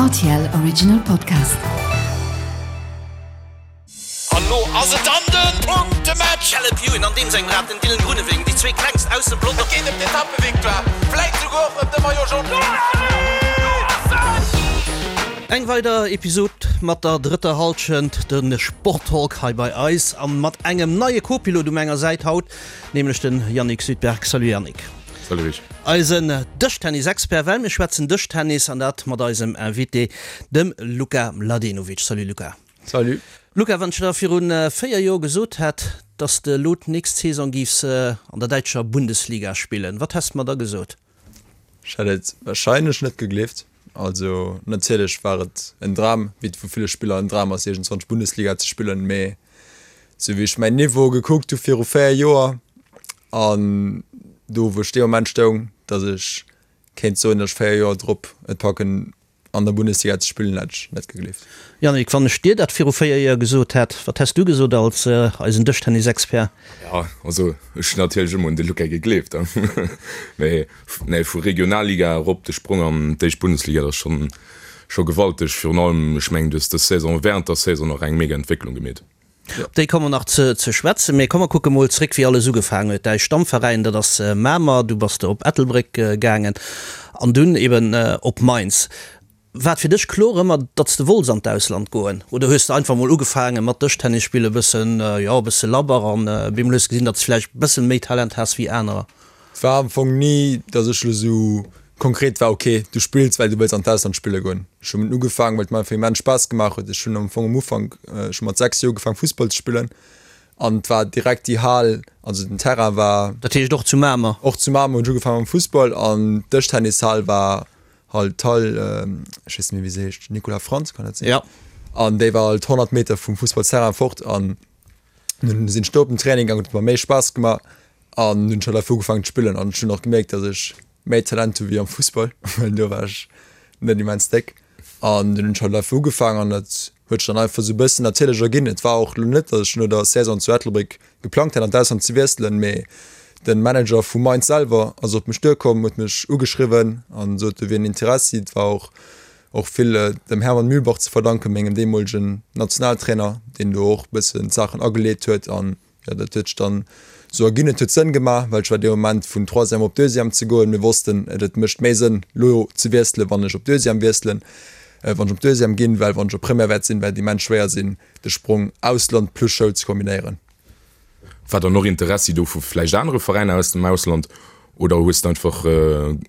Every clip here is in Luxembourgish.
Rtl Original Podcast. An lo ass et dann den Punktematch! Caleb Ewan an deem sengem Rad, den Dylan Groenewegen, déi zwee klengst aus dem Pelotong. Et geet ëm d'Etappevictoire, vläit souguer och ëm de Maillot Jaune. Eng weider Episod mat der drëtter Hallschent, de Sporttalk hei bei eis an mat engem neie Co-Pilot u menger Säit haut, nämlech den Yannick Südberg. Salut Yannick. Salut Rich. Eisen Dëschtennis-Expert, well mir schwätzen Dëschtennis an dat mat eisem Invité, dem Luka Mladenovic. Salut Luka. Salut. Luka, wann ech der virun 4 Joer gesot hätt, dass de elo d'nächst Saison giffs an der däitscher Bundesliga spillen, wat häss de mer da gesot? Ech hätt et warscheinlech net gegleeft. Also natierlech war et en Dram, wéi et vu ville Spiller en Dram ass iergendzwann Bundesliga ze spillen, mee sou wéi ech mäin Niveau gekuckt hu viru 4 Joer an do wou ech dee Moment stoung, datt ech kéint soen, datt ech 4 Joer drop et packen an der Bundesliga ze spillen, hätt ech net gegleeft. Yannick, wann ech dir dat viru 4 Joer gesot hätt, wat häss du gesot als eisen Dëschtennisexpert? Jo, also ech hunn natierlech ëmmer un de Luca gegleeft, mee nee, vu Regionalliga erop de Sprong an d'éischt Bundesliga, dat ass schonn scho gewalteg. Virun allem, ech mengen, du hues dës Saison, während der Saison nach eng mega Entwécklung gemeet. Op déi komme mer nach ze schwätzen, mee komm mer kucke mol zréck wéi alles ugefaangen huet. Däi Stammveräin, dat ass Mamer, du bass op Ettelbréck gaangen an dunn eben op Mainz. War et fir dech kloer ëmmer, datt s de wollts an d'Ausland goen oder hues de einfach mol ugefaange mat Dëschtennis spille bëssen, jo e bësse labber an bemol hues de gesinn, datt s vläicht bëssen méi Talent has wéi anerer? Et war am Fong ni, datt ech elo sou konkret war, ok, du spills, well du wëlls an d'Ausland spille goen. Ech hunn ugefaangen, well et mer einfach immens Spaass gemaach huet. Ech hunn am Fong am Ufank, ech hu mat 6 Joer ugefaangen Fussball ze spillen an et war direkt déi Hal, also den Terrain war. Dat heescht och zu Mamer? Och zu Mamer hunn ech ugefaangen mam Fussball an d'Dëschtennis-Hal war halt d'Hal, ech weess net méi wéi se heescht, Nicolas Frantz, kann dat sinn? Jo. An déi war halt 100 Meter vum Fussballsterrain fort an dunn sinn ech do op den Training gaangen, huet mer méi Spaass gemaach. An hunn schon einfach ugefaangen ze spillen an ech hunn och gemierkt, dass ech méi Talent hu wéi am Fussball, well do war ech net immens déck. An dunn hunn ech halt einfach ugefaangen an dat huet sech dann einfach sou e bëssen natierlech erginn. Et war och elo net, dass ech no der Saison zu Ettelbréck geplangt hätt an d'Ausland ze wiesselen, mee de Manager vu Mainz selwer ass op mech duerkomm, huet mech ugeschriwwen an sot, do wier en Interessi. Et war och och vill dem Hermann Mühlbach ze verdanken, mengem deemolegen Nationaltrainer, deen do och e bëssen d'Saachen ageleet huet an Jo, dat huet sech dann esou erginn. Et huet Sënn gemaach, well ech war dee Moment vun Troisième op Deuxième ze goen. Mir wossten, et et mécht méi Sënn lo ze wiesselen, wann ech op Deuxième wiesselen, wann ech op Deuxième ginn, well wann ech op Première wäert sinn, wäert et immens schwéier sinn, de Sprong Ausland plus Schoul ze kombinéieren. War dann och Interessi do vu vläicht anere Veräiner aus dem Ausland oder hues de einfach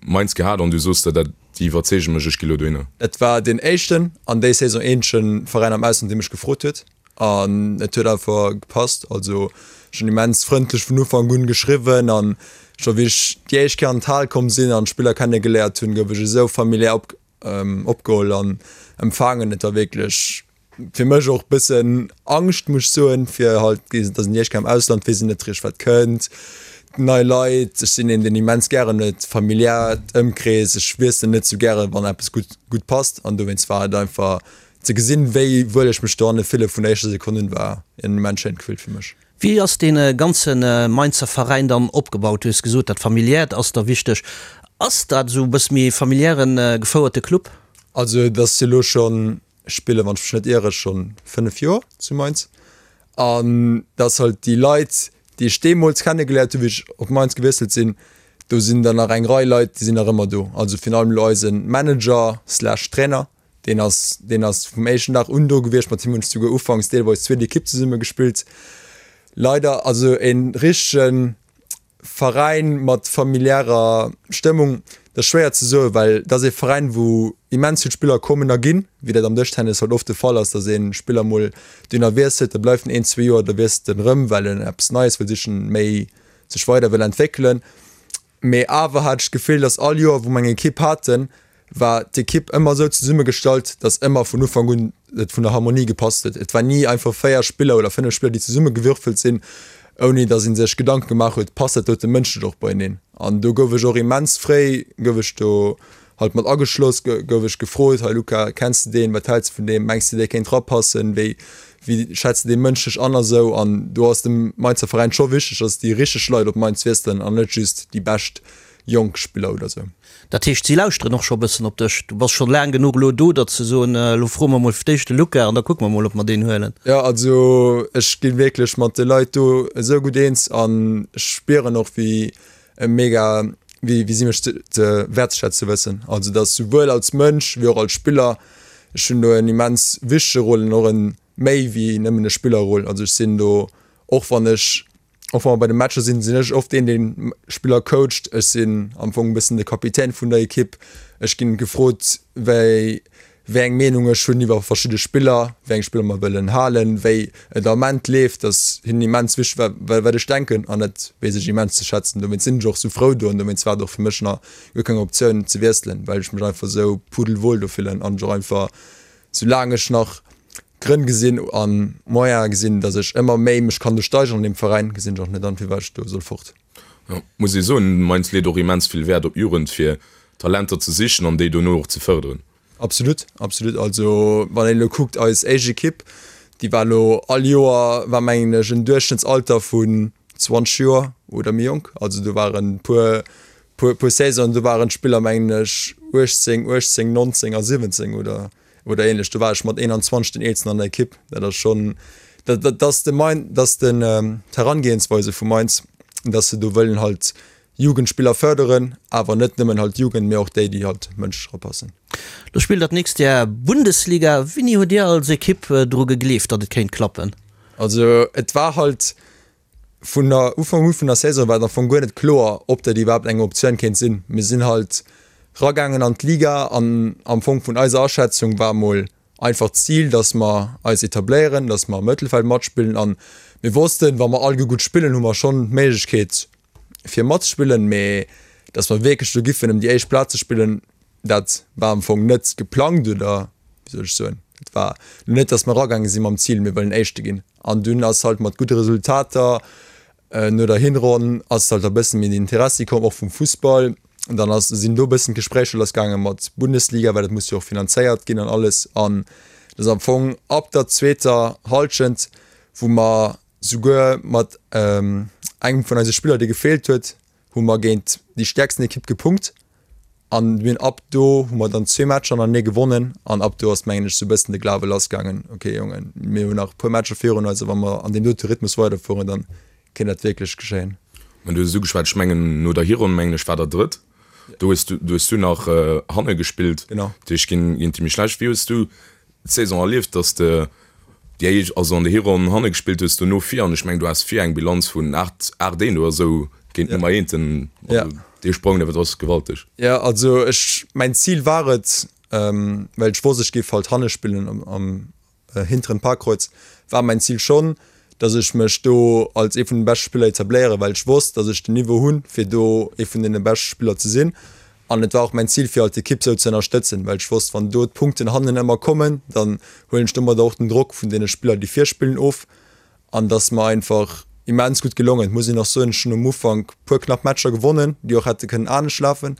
Mainz gehat an du soos der, dat déi iwwerzeege mech, ech gi lo dohinner? Et war deen éischten an déi Saison eenzege Veräin am Ausland, dee mech gefrot huet. An et huet einfach gepasst. Also ech hunn immens frëndlech vun Ufank un geschriwwen an scho wéi ech déi éischt Kéier an d'Hal komm sinn an d'Spiller kenne geléiert hunn, gouf ech esou familiär op opgeholl an empfaangen. Et war wierklech fir mech och bëssen Angscht, muss ech soen, fir halt, et ass déi éischt Kéier am Ausland, weess een net richteg wat kënnt, nei Leit. Ech sinn een deen immens gären huet, familiärt Ëmkrees, ech wiesselen net sou gären, wann eppes gutt gutt passt an dowéinst war et einfach Ze gesinn, wéi wuel ech mech dohanne fille vun der éischter Sekonn un, war en immens schéint Gefill fir mech. Wéi ass dee ganze Mainzer Veräin dann opgebaut? Du hues gesot, dat Familiäert ass der wichteg. Ass dat esou e bësse méi e familiäre gefouerte Club? Also et ass jo elo schonn, ech spillen, wann ech mech net iere, schonn 5 Joer zu Mainz. An dass halt déi Leit, déi ech deemools kennegeléiert hunn, wéi ech op Mainz gewiesselt sinn, do sinn der nach eng Rei Leit, déi sinn nach ëmmer do. Also virun allem elo eise Manager slash Trainer, Deen ass, deen ass vum éischten Dag un do gewiescht. Mat him hunn ech souguer ufanks deelweis zweet Ekipp zesumme gespillt. Leider, also e richtege Veräin mat familiärer Stëmmung, dat ass schwéier ze soen, well dat ass ee Veräin, wou immens vill Spiller kommen a ginn, wéi dat am Dëschtennis halt oft de Fall ass, datt ee Spiller mol dohinner wiesselt, da bleift en een, zwee Joer, da wiesselt en erëm, well en eppes Neies wëll sichen, méi sech weider wëll entwéckelen. Mee awer hat ech d'Gefill, dass all Joer, wou mer eng Ekipp haten, war d'Ekipp ëmmer esou zesummegestallt, dass ëmmer vun Ufank un et vun der Harmonie gepasst huet. Et war ni einfach 4 Spiller oder 5 Spiller, déi zesummegewürfelt sinn, ouni dass ee sech Gedanke gemaach huet, passt dat dote mënschlech och beieneen. An do gouf ech och immens fréi, gouf ech do halt mat ageschloss, gouf ech gefrot, hei Luca, kenns de deen, wat häls de vun deem, mengs de dee kéint rapassen, wéi wéi schätz de dee mënschlech an a sou. An do ass dem Mainzer Veräin scho wichteg, dass déi richteg Leit op Mainz wiesselen an net just déi bescht. jonk Spiller oder sou. Dat heescht, si lauschteren och scho e bëssen op dech? Du bass schonn laang genuch elo do, datt se soen, elo froe mer mol fir d'éischt de Luca an da kucke mer mol, ob mer deen huelen. Jo, also ech gi wierklech mat de Leit do esou gutt eens an ech spieren och, wéi mega, wéi wéi si mech ze ze wäertzeschätze wëssen. Also datt souwuel als Mënsch wéi och als Spiller, ech hunn do en immens wichtege Rôle an och en méi wéi nëmmen e Spillerrôle. Also ech sinn do, och wann ech Och wa mer bei de Matcher sinn, sinn ech oft deen, deen Spiller coacht. Ech sinn am Fong e bëssen de Kapitän vun der Ekipp. Ech ginn gefrot, wéi wéi eng Meenung ech hunn iwwer verschidde Spiller, wéi eng Spiller mer wëllen halen, wéi et am Ament leeft. Dat ass hinnen immens wichteg, wa wat ech denken an dat weess ech immens ze schätzen. Dowéinst sinn ech och sou frou do an dowéinst war et och fir mech nach guer keng Optioun ze wiesselen, well ech mech einfach sou pudelwohl do fillen an ech och einfach, soulaang ech nach Grënn gesinn a Moyene gesinn, datt ech ëmmer méi mech kann do steigeren an deem Veräin, gesinn ech och net an, firwat ech do soll fort. Jo, muss ee soen, Mainz leet och immens vill Wäert op Jugend, fir Talenter ze sichen an déi dono och ze fërderen. Absolut, absolut. Also wann een elo kuckt, eis éischt Ekipp, déi war elo all Joer, war mengen ech en Duerchschnëttsalter vun 20 Joer oder méi jonk. Also do waren puer, puer, puer Saisonen, do waren d'Spiller mengen ech 18, 18, 19 a 17 oder oder ähnlech. Do war ech mat 21 den eelsten an der Ekipp. Dat ass schonn, dat, dat ass de Main, dat ass den d'Herangehensweise vu Mainz, dass se do wëllen halt Jugendspiller fërderen, awer net nëmmen halt d'Jugend, mee och déi, déi halt mënschlech erapassen. Lo spillt der d'nächst Jar Bundesliga. Wéini hutt Dir als Ekipp dru gegleeft, datt et kéint klappen? Also et war halt Vun der Ufank u vun der Saison war et am Fong guer net kloer, ob dat iwwerhaapt eng Optioun kéint sinn. Mir sinn halt ragaangen an d'Liga an am Fong vun eiser Aschätzung war mol einfach d'Zil, dass mer eis etabléieren, dass mer am Mëttelfeld matspillen an mir wossten, wa mer alleguer gutt spillen, hu mer schonn d'Méiglechkeet fir matzespillen, mee dass mer wierklech do giffen ëm déi éischt Plaz ze spillen, Dat war am Fong net geplangt oder wéi soll ech soen, et war lo net, datt mer eragaange si mam Zil, mir wëllen Éischte ginn. An dunn ass halt mat gudde Resultater no der Hinronn ass halt e bësse méi den Interessi komm, och vum Fussball. An dann ass, sinn do e bëssen d'Gespréicher lassgaange mat Bundesliga, well dat muss jo och finanzéiert ginn an alles. An dat ass am Fong ab der zweeter Hallschent, wou mer souguer mat engem vun eise Spiller, dee gefeelt huet, hu mer géint déi stäerksten Ekipp gepunkt an mir hunn ab do hu mer dann zwee Matcher hannertenee gewonnen an ab do ass mengen ech sou e bëssen de Glawe lassgaangen, ok Jongen, mir hunn nach e puer Matcher virun eis a wa mer an deem dote Rhythmus weiderfueren, dann kéint dat wierklech geschéien. Mä du hues et ugeschwat, ech mengen no der Hironn mengen ech war der Drëtt, do hues du, do hues du nach hanne gespillt, Genau. dat heescht géint déi méi schlecht. Wéi hues du d'Saison erlieft, dass de déi éischt, also an der Hironn hanne gespillt hues, dono vir, an ech mengen du has vir eng Bilanz vun 8, 8 1 oder esou géint d'Nummer eenten, also dee Sprong, dat ass gewalteg. Jo, also ech, mäin Zil war et, well ech wosst ech géif halt hanne spillen am, am hinteren Parkreuz, war mäin Zil schonn, dass ech mech do als ee vun den beschte Spiller etabléieren, well ech wosst, dass ech den Niveau hunn, fir do ee vun deene beschte Spiller ze sinn. An et war och mäin Zil, fir halt d'Ekipp sou ze ënnerstëtzen, well ech wosst, wann do d'Punkten hannen ëmmer kommen, dann huelen ech domadder och den Drock vun deene Spiller, déi vir spillen, of. An et ass mer einfach immens gutt gelongen. Et muss een och soen, ech hunn um Ufank puer knapp Matcher gewonnen, déi och hätte kënnen anescht lafen.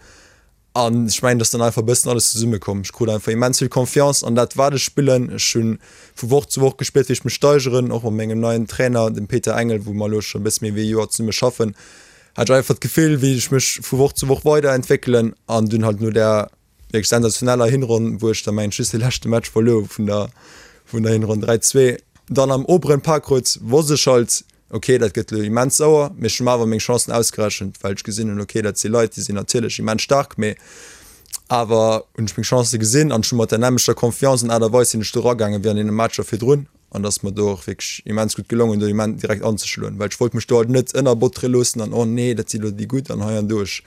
An ech mengen, et ass dann einfach e bëssen alles zesummekomm. Ech krut einfach immens vill Confiance an dat, wat ech spillen. Ech hu vu Woch zu Woch gespiert, wéi ech mech steigeren, och mat mengem neien Trainer, dem Peter Engel, wou mer elo scho e bësse méi wéi e Joer zesumme schaffen, hat ech einfach d'Gefill, wéi ech mech vu Woch zu Woch weiderentwéckelen. An dunn halt no där wierklech sensationeller Hinronn, wou ech da mengen ech just de leschte Match verluer hu vun der vun der Hinronn 3, 2, dann am oberen Parkreuz, wosst ech halt, Ok, dat gëtt elo immens sauer, mee ech hu mer awer meng Chancen ausgerechent, well ech gesinn hunn, ok, dat si Leit, déi sinn natierlech immens staark, mee awer hunn ech meng Chancë gesinn an ech hu mat der nämmlechter Confiance an Aart a Weis sinn ech do eragaangen, wéi an deene Matcher virdrun an et ass mer do och wierklech immens gutt gelongen, do immens direkt anzeschloen, well ech wollt mech do halt net ënnerbottere loossen an oh nee, dat si lo déi gutt an hei an do. Ech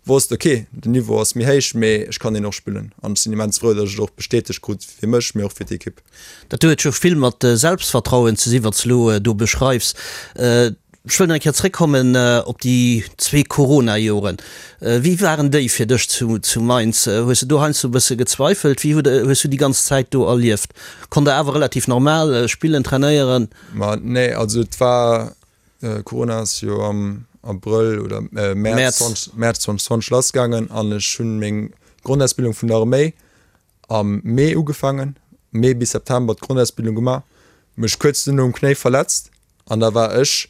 wosst, ok, den Niveau ass méi héich, mee ech kann deen och spillen an ech sinn immens frou, datt ech et och bestätegt krut fir mech, mee och fir d'Ekipp. Dat huet jo vill mat Selbstvertrauen ze si wat s elo do beschreifs. Ech wëll nach eng Kéier zréckkommen op déi zwee Corona-Joren. Wéi waren déi fir dech zu Mainz? Hues de do heiansdo e bësse gezweifelt? Wéi hues du déi ganz Zäit do erlieft? Konnt der awer relativ normal spillen, trainéieren? Ma nee, also et war, Corona ass jo am Abrëll oder Mäerz 2020 lassgaangen an ech hunn meng Grondausbildung vun der Arméi am Mee ugefaangen, Mee bis September d'Grondausbildung gemaach, mech kuerz duerno um Knéi verletzt an da war ech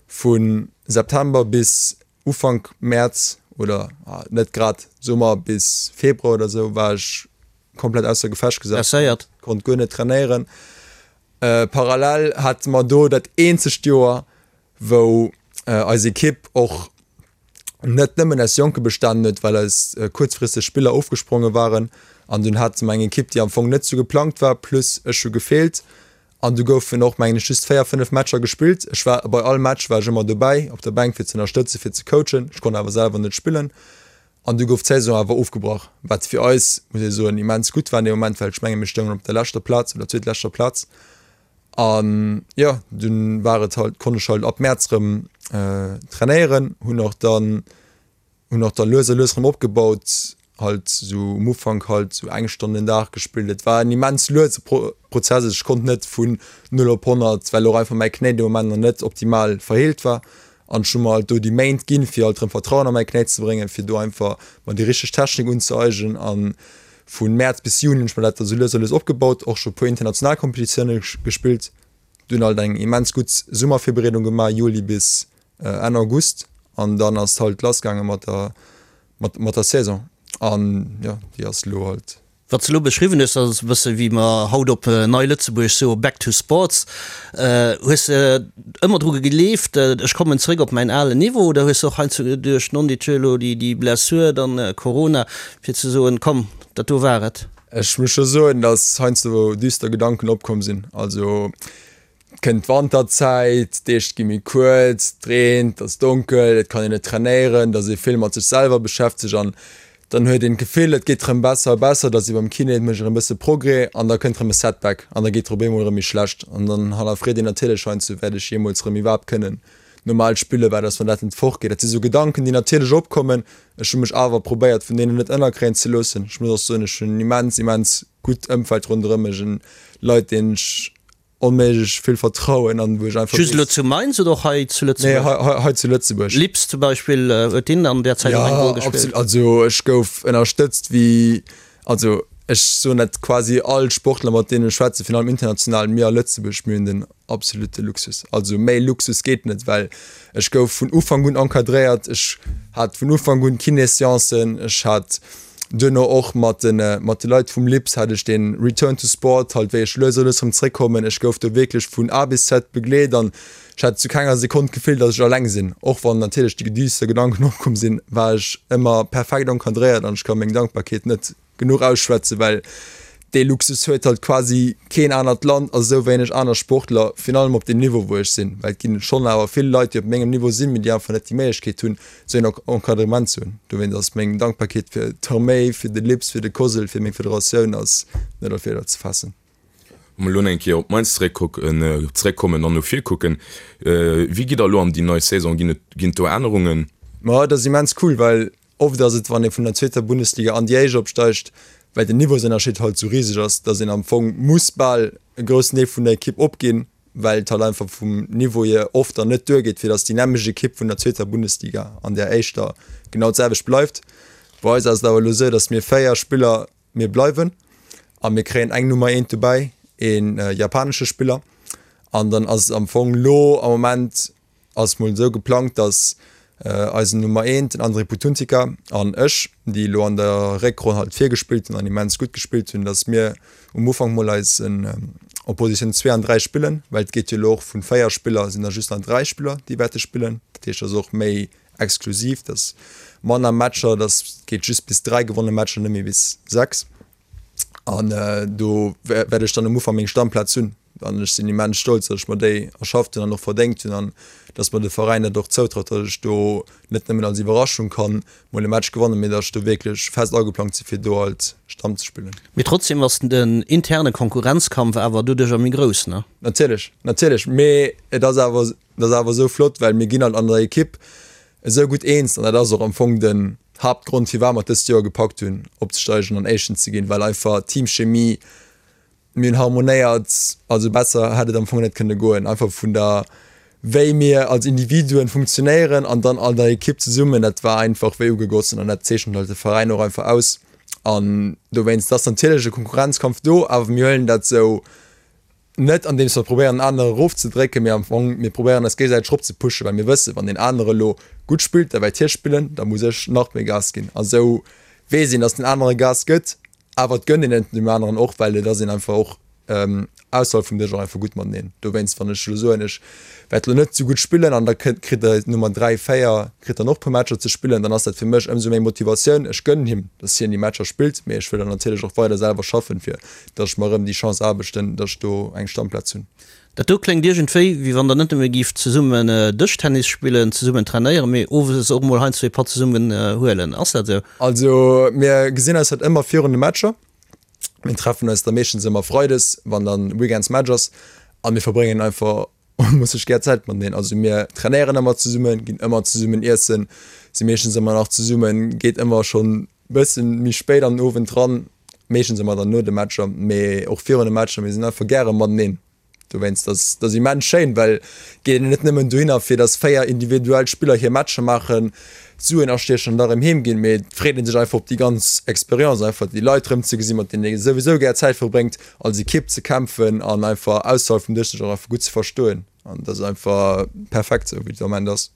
vu September bis Ufank Mäerz. oder net grad Summer bis Februar oder sou war ech komplett ausser Gefecht gesat, Blesséiert. konnt guer net trainéieren. Parallel hate mer do dat eenzegt Joer, wou eis Ekipp och net nëmmen aus Jonke bestanen huet, well eis kuerzfristeg Spiller ofgespronge waren an dunn hate mer eng Ekipp, déi am Fong net sou geplangt war, plus ech hu gefeelt an du goufen och mengen ech just 4, 5 Matcher gespillt. Ech war bei all Match war ech ëmmer dobäi op der Bänk fir ze ënnerstëtzen, fir ze coachen, ech konnt awer selwer net spillen an du gouf d'Saison awer ofgebrach, wat fir eis, muss ee soen, immens gutt war an deem Moment, well ech menge mir stoungen op der leschter Plaz oder zweetleschter Plaz. An jo, dunn war et halt, konnt ech halt ab Mäerz rëm trainéieren, hunn och dann, hunn och dann lues a lues rëm opgebaut, halt sou um Ufank halt sou eng Stonn den Dag gespillt. Et war en immens luese Prozess, ech konnt net vun 0 op 100, well och einfach mäi Knéi dee Moment nach net optimal verheelt war. An ech hu mer halt do déi Méint ginn, fir halt rëm Vertrauen a mäi Knéi ze bréngen, fir do einfach mer déi richteg Technik unzëeignen. An Vu Mäerz bis Juni hunn ech mer dat da sou lues a lues opgebaut, och scho puer international Competitioune gespillt, dunn halt eng immens gutt Summervirbereedung gemaach, Juli bis Enn August, an dann ass halt lass gaange mat der mat der Saison an jo déi ass elo halt. Wat s de elo beschriwwen hues, dat ass e bësse wéi mer haut op Nei Lëtzebuerg soe back to sports. Hues de ëmmer dru gegleeft, ech kommen zréck op mäin alen Niveau, oder hues de och heiansdo duerch non-dit elo déi Blessur, dann Corona, Fir ze soen, komm, dat do war et. Ech muss scho soen, datt heiansdo düster Gedanken opkomm sinn. Also et kënnt d'Wanterzäit, d'Deeg gi méi kuerz, et reent, et ass donkel, et kann een net trainéieren, et ass ee vill mat sech selwer beschäftegt an dann huet een d'Gefill, et geet rëm besser a besser, et ass wéi beim Kiné, et mécht erëm e bësse Progrès an da kënnt rëm e Setback an da geet et op eemol erëm méi schlecht an dann hannerfreet een natierlech heiansdo, wäert ech jeemools rëm iwwerhaapt kënnen normal spillen, wat ass wann dat net fortgeet. Dat si sou Gedanken, déi natierlech opkommen. Ech hu mech awer probéiert vun deenen net ënnerkréien ze loossen. Ech muss och soen, ech hunn en immens, immens gutt Ëmfeld ronderëm mech, en Leit deenen ech onméiglech vill vertrauen an wou ech einfach Just elo zu Mainz oder och hei zu Lëtzebuerg? Nee, hei, hei zu Lëtzebuerg. Lips zum Beispill, huet deen an där Zäit och eng Roll gespillt? Jo, absolut. Also ech gouf ënnerstëtzt wéi, also ech soen dat quasi all Sportler mat deenen ech schwätzen, virun allem international, mir a Lëtzebuerg, mir hunn den absolute Luxus. Also méi Luxus geet net, well ech gouf vun Ufank un encadréiert, ech hat vun Ufank un Kinéséancen, ech hat duerno och mat de mat de Leit vum LIPS hat ech dee Return to Sport, halt wéi ech lues a lues erëm zréckkommen. Ech gouf do wierklech vun A bis Z begleet an ech hat zu kenger Sekonn d'Gefill, datt ech alleng sinn. Och wann natierlech déi düster Gedanken opkomm sinn, war ech ëmmer perfekt encadréiert an ech ka meng Dankbarkeet net genuch ausschwätzen, well dee Luxus huet halt quasi keen anert Land a sou wéineg aner Sportler, virun allem op deem Niveau wou ech sinn, well et ginn schonn awer vill Leit déi op mengem Niveau sinn, mee déi einfach net déi Méiglechkeet hunn sou een Encadrement ze hunn. Dowéinst ass meng Dankbarkeet fir d'Arméi, fir de LIPS, fir de COSL, fir meng Federatioun ass net a Wierder ze faassen. Wa mer elo eng Kéier op Mainz zeréckkucken, zeréckkommen an no vir kucken, wéi gitt der elo an déi nei Saison? Ginn et, ginn et do Ännerungen? Ma et ass immens cool, well Oft ass et, wann ee vun der zweeter Bundesliga an déi éischt opsteigt, well den Niveausënnerscheed halt esou riseg ass, datt een am Fong muss bal e groussen Deel vun der Ekipp opginn, well et halt einfach vum Niveau hier oft dann net duergeet, fir datt déi nämmlecht Ekipp vun der zweeter Bundesliga an där éischter genau d'selwecht bleift. Bei eis ass et awer elo esou, datt mir 4 Spiller, mir bleiwen a mir kréien eng Nummer eent dobäi, ee japanesche Spiller an dann ass et am Fong elo am Moment, Ass mol esou geplangt, dass eisen Nummer eent, den André Putuntica, an ech, déi elo an der Réckronn halt virgespillt hunn an immens gutt gespillt hunn, dass mir um Ufank mol eis op Positioun 2 an 3 spillen, well et geet jo elo och vun 4 Spiller sinn da just nach 3 Spiller, déi wäerte spillen. Dat heescht, et ass och méi exklusiv, dass manner Matcher, dass geet just bis 3 gewonne Matcher, net méi bis 6. An do wäert ech dann um Ufank meng Stammplaz hunn. An ech sinn immens stolz, datt ech mer déi erschafft hunn an och verdéngt hunn an datt mer de Veräin dat och zoutraut, datt ech do net nëmmen als Iwwerraschung kann mol e Match gewannen, mee datt ech do wierklech fest ageplangt sinn, fir do halt Stamm ze spillen. Mee trotzdem ass den interne Konkurrenzkampf awer doduercher méi grouss, ne? Natierlech, natierlech. Mee et ass awer, et ass awer esou flott, well mir ginn halt an der Ekipp esou gutt eens an dat ass och am Fong den Haaptgrond, firwat mer et dëst Joer gepackt hunn, opzesteigen an Éischten ze ginn, well einfach d'Teamchemie, Mir hunn harmonéiert, also besser hätt et am Fong net kënne goen. Einfach vun der, wéi mir als Individuen funktionéieren an dann an der Ekipp zesummen, dat war einfach wéi ugegossen an dat zeechent halt de Veräin och einfach aus. An dowéinst ass natierlech e Konkurrenzkampf do, awer mir huelen dat sou. Net andeems mer probéieren en anere erofzedrécken, mee am Fong mir probéieren eis géigesäiteg eropzepushen, well mir wëssen, wann deen anere elo gutt spillt, da wäert hie spillen, da muss ech nach méi Gas ginn. A sou weess een, datt den anere Gas gëtt, awer et gënnt een et deem aneren och, well et ass een einfach och ausserhalb vum Dësch och einfach gutt mateneen. Dowéinst, wann ech elo soen, ech wäert elo net sou gutt spillen an da kritt kritt der Nummer 3, 4 kritt dann och e puer Matcher ze spillen, dann ass dat fir mech ëmsou méi Motivatioun. Ech gënnen him, datt hien déi Matcher spillt, mee ech wëll dann natierlech och weider selwer schaffen, fir datt ech mer erëm déi Chance aarbechten, datt ech do eng Stammplaz hunn. Dat do kléngt iergendwéi, wéi wann der net nëmme gift zesummen Dëschtennis spillen, zesummen trainéieren, mee owes och mol heiansdo ee Patt zesummen huelen. Ass dat esou? Also mir gesinn eis halt ëmmer virun de Matcher. Mir treffen eis da meeschtens ëmmer freides, wann dann weekends Match ass, a mir verbréngen einfach muss ech gär Zäit mateneen. Also mir trainéieren ëmmer zesummen, ginn ëmmer zesummen iessen, si meeschtens ëmmer nach zesummen, geet ëmmer schonn bëssen méi spéit an den Owend dran, meeschtens ëmmer dann no de Matcher, mee och virun de Matcher. Mir sinn einfach gäre mateneen. Dowéinst ass dat immens schéin, well geet een net nëmmen dohinner fir datt 4 individuell Spiller hir Matcher maachen, Suen astiechen an da rëm heem ginn, mee et freet ee sech einfach op déi ganz Experience, einfach déi Leit rëm ze gesinn, mat deenen ee souwisou gär Zäit verbréngt, als Ekipp ze kämpfen an einfach ausserhalb vum Dësch sech och einfach gutt ze verstoen. An dat ass einfach perfekt esou wéi et am Ament ass.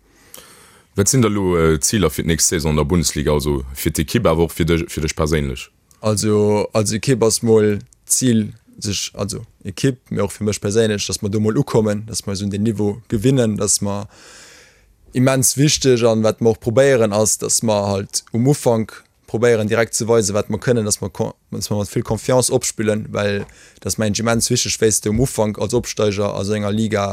Wat sinn da lo d'Ziler fir d'nächst Saison an der Bundesliga, also fir d'Ekipp awer och fir dech, fir dech perséinlech? Also als Ekipp ass mol d'Zil sech, also Ekipp, mee och fir mech perséinlech, datt mer do mol ukommen, datt mer eis un deen Niveau gewinnen, datt mer immens wichteg an wat mer och probéieren ass, datt mer halt um Ufank probéieren direkt ze weisen, wat mer kënnen, datt mer datt mer mat vill Confiance opspillen, well dat ass mengen ech immens wichteg, wéi s de um Ufank als Opsteiger a sou enger Liga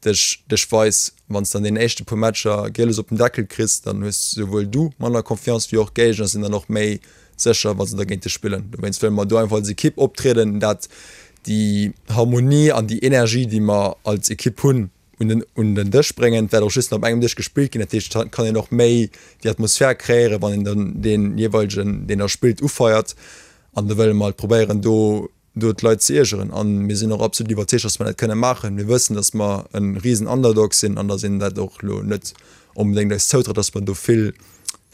dech dech weis. Wann s de an deenen éischte puer Matcher Gieles op den Deckel kriss, dann hues souwuel du manner Confiance wéi och d'Géigner sinn dann och méi sécher, wa se da géint dech spillen. Dowéinst wëlle mer do einfach als Ekipp optrieden, dat déi Harmonie an déi Energie, déi mer als Ekipp hunn, un den un den Dësch bréngen. Et wäert och just nach op engem Dësch gespillt ginn, dat heescht et kann een och méi déi Atmosphär kreéieren, wann een dann dee jeeweilegen, deen da spillt, ufeiert. An do wëlle mer halt probéieren, do do d'Leit ze iergeren. A mir sinn och absolut iwwerzeegt, datt mer dat kënne maachen. Mir wëssen, datt mer e risen Underdog sinn an datt een dat och elo net onbedéngt eis zoutraut, datt mer do vill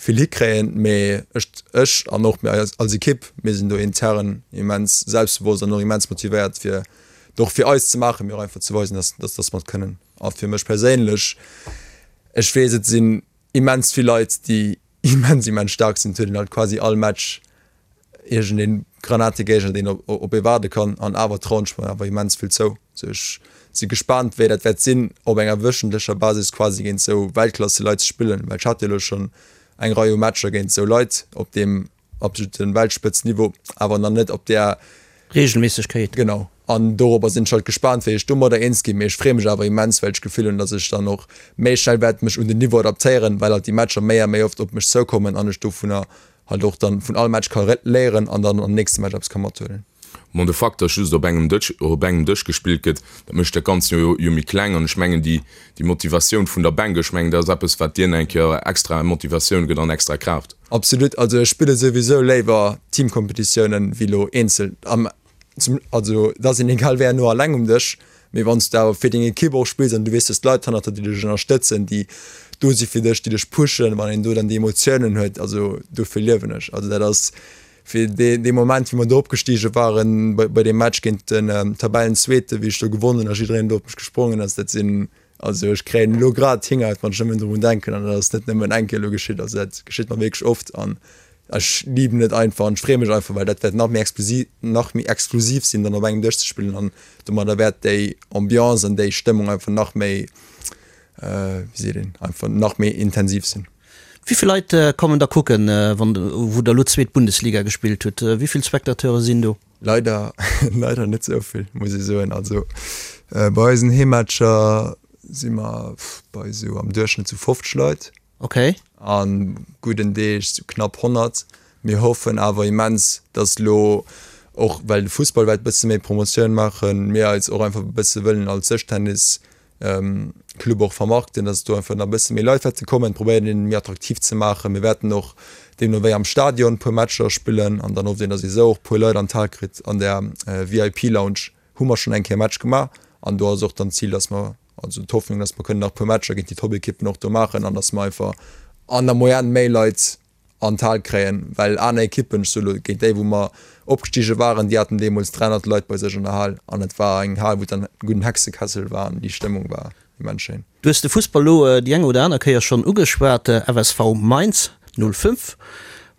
vill hikréien. Mee ech ech an och mir als Ekipp, mir sinn do intern immens selbstbewosst an och immens motivéiert, fir et och fir eis ze maachen, mee och einfach ze weisen, dass, dass, dass mer et kënnen. A fir mech perséinlech, ech weess, et sinn immens vill Leit, déi immens, immens staark sinn. Et huet een halt quasi all Match iergendee Granategéigner, deen op, op ee waarde kann. An awer trauen ech mer awer immens vill zou. Sou, ech si gespaant, wéi dat wäert sinn, op enger wöchentlecher Basis quasi géint sou Weltklasseleit ze spillen, well ech hat jo elo schonn eng Rei u Matcher géint sou Leit op deem absoluten Weltspëtzniveau, awer nach net op där Regelméissegkeet. Genau. An dorobber sinn ech halt gespaant, wéi ech domadder eens ginn. Mee ech freeë mech awer immens, well ech d'Gefill hunn, datt ech dann och méi schnell wäert mech un den Niveau adaptéieren, well halt déi Matcher méi a méi oft op mech zoukommen an ech dovunner halt och dann vun all Match ka léieren an dann am nächste Match eppes ka mathuelen. Bon, de Fakt, datt just op engem Dësch, op engem Dësch gespillt gëtt, dat mécht dat Ganzt jo jo méi kleng. An ech mengen, déi, déi Motivatioun vun der Bänk, ech mengen, dat ass eppes, wat dir eng Kéier extra Motivatioun gëtt an extra Kraaft. Absolut. Also ech spille souwisou léiwer Teamkompetitiounen wéi elo eenzel. Am, zum, also et ass een egal wéi herno alleng um Dësch, mee wann s du awer fir deng Ekipp och spills an du weess, dass d'Leit hannert der, déi dech ënnerstëtzen, déi do si fir dech, déi dech pushen, wann een do dann déi Emotiounen huet, also dofir liewen ech. Also dat ass, Fir dee Moment, wéi mer do opgestige waren, bei deem Match géint den Tabellenzweete, wéi ech do gewonnen hunn a jiddereen do op mech gesprongen ass, dat sinn, also ech kréien elo grad d'Hingerhaut, wann ech nëmmen drun denken an dat ass net nëmmen eng Kéier elo geschitt, also dat geschitt mer wierklech oft an ech liben et einfach an ech freeë mech einfach, well dat wäert nach méi exklusiv, nach méi exklusiv sinn, dann op engem Dësch ze spillen an domadder wäert déi Ambiance an déi Stëmmung einfach nach méi, wéi seet een, einfach nach méi intensiv sinn. Wéi vill Leit kommen da kucken, wann wou der elo zweet Bundesliga gespillt hutt? Wéi vill Spectateure sinn do? Leider, leider net esou vill, muss ech soen. Also bei eisen Heemmatcher si mer bei esou am Duerchschnëtt sou 50 Leit. Okay. An gudden Deeg sou knapp 100. Mir hoffen awer immens, dass elo och well de Fussball wäert e bësse méi Promotioun maachen, mir eis och einfach e bësse wëllen als Dëschtennis Club och vermarkten, dass do einfach nach e bësse méi Leit wäerte kommen, probéieren een méi attraktiv ze maachen. Mir wäerten och deemno wéi am Stadion e puer Matcher spillen an dann hofft een, dass ee sou och e puer Leit an d'Hal kritt. An der VIP Lounge hu mer schonn eng Kéier e Match gemaach an do ass och dann d'Zil, dass mer, also d'Hoffnung, dass mer kënnen nach e puer Matcher géint déi Top-Ekippen och do maachen an dass mer einfach an der Moyenne méi Leit. An d'Hal kréien, well aner Ekippen, ech soe lo géint déi wou mer opgestige waren, déi haten deemools 300 Leit bei sech an der Hal an et war eng Hal wou et dann e gudden Hexekessel war an déi Stëmmung war immens schéin. Du hues de Fussball lo déi eng oder aner Kéier schonn ugeschwat, FSV Mainz 05.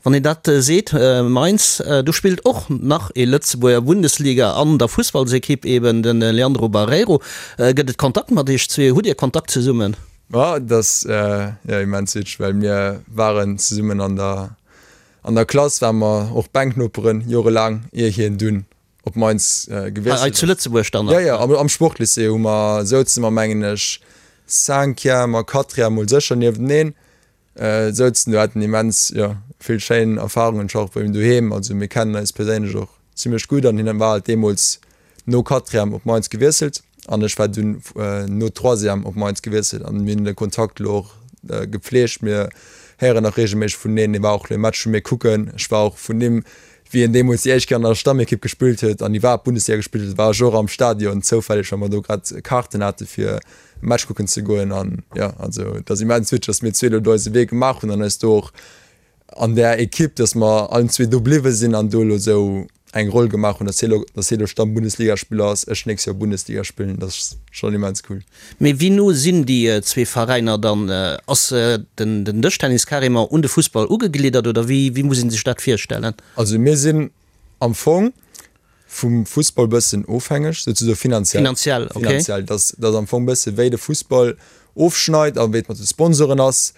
Wann een dat seet, Mainz, do spillt och nach ee Lëtzebuerger Bundesliga an der Fussballsekipp, eben de Leandro Barreiro. Gëtt et Kontakt mat iech zwee? Hutt Dir Kontakt zesummen? Ma et ass jo immens witzeg, well mir waren zesummen an der an der Klass, ware mer och Bänknoperen jorelaang, ier hien dunn op Mainz gewiesselt ass. Hei zu Lëtzebuerg dann nach? Jo, jo, am Sportlycée hu mer, souze mer mengen ech Cinquième a Quatrième mol sécher niefteneen. Souzen do, haten immens, jo, vill schéin Erfarungen, ech war och bei him doheem, also mir kennen eis perséinlech och zimlech gutt an hien war halt deemools no Quatrième op Mainz gewiesselt an ech war dunn no Troisième op Mainz gewiesselt an mir hunn de Kontakt elo och gepflegt, mir héieren nach reegelméisseg vuneneen, hie war och elo e Match vu mir kucken, ech war och vun him wéi en deemools déi éischt Kéier an der Stammekipp gespillt huet an iwwerhaapt Bundesliga gespillt huet, war ech och am Stadion zoufälleg, well mer do grad Kaarten hate fir e Match kucken ze goen. An jo, also et ass immens witzeg, datt mir zwee elo do eise Wee gemaach hunn an eis do och an där Ekipp, datt mer allen zwee do bliwwe sinn an do elo esou eng Roll gemaach hunn, datt hie elo, datt hie elo Stamm-Bundesligaspiller ass, ech nächst Joer Bundesliga spillen, dat ass schonn immens cool. Mee wéi no sinn déi zwee Veräiner dann? Ass den Dëschtennis carrément un de Fussball ugegliddert oder wéi muss ee sech dat virstellen? Also mir sinn am Fong vum Fussball bëssen ofhängeg, souzesoe finanziell. Finanziell, okay. Finanziell, dass dass am Fong bësse wéi de Fussball ofschneit a wéi et mat de Sponsoren ass.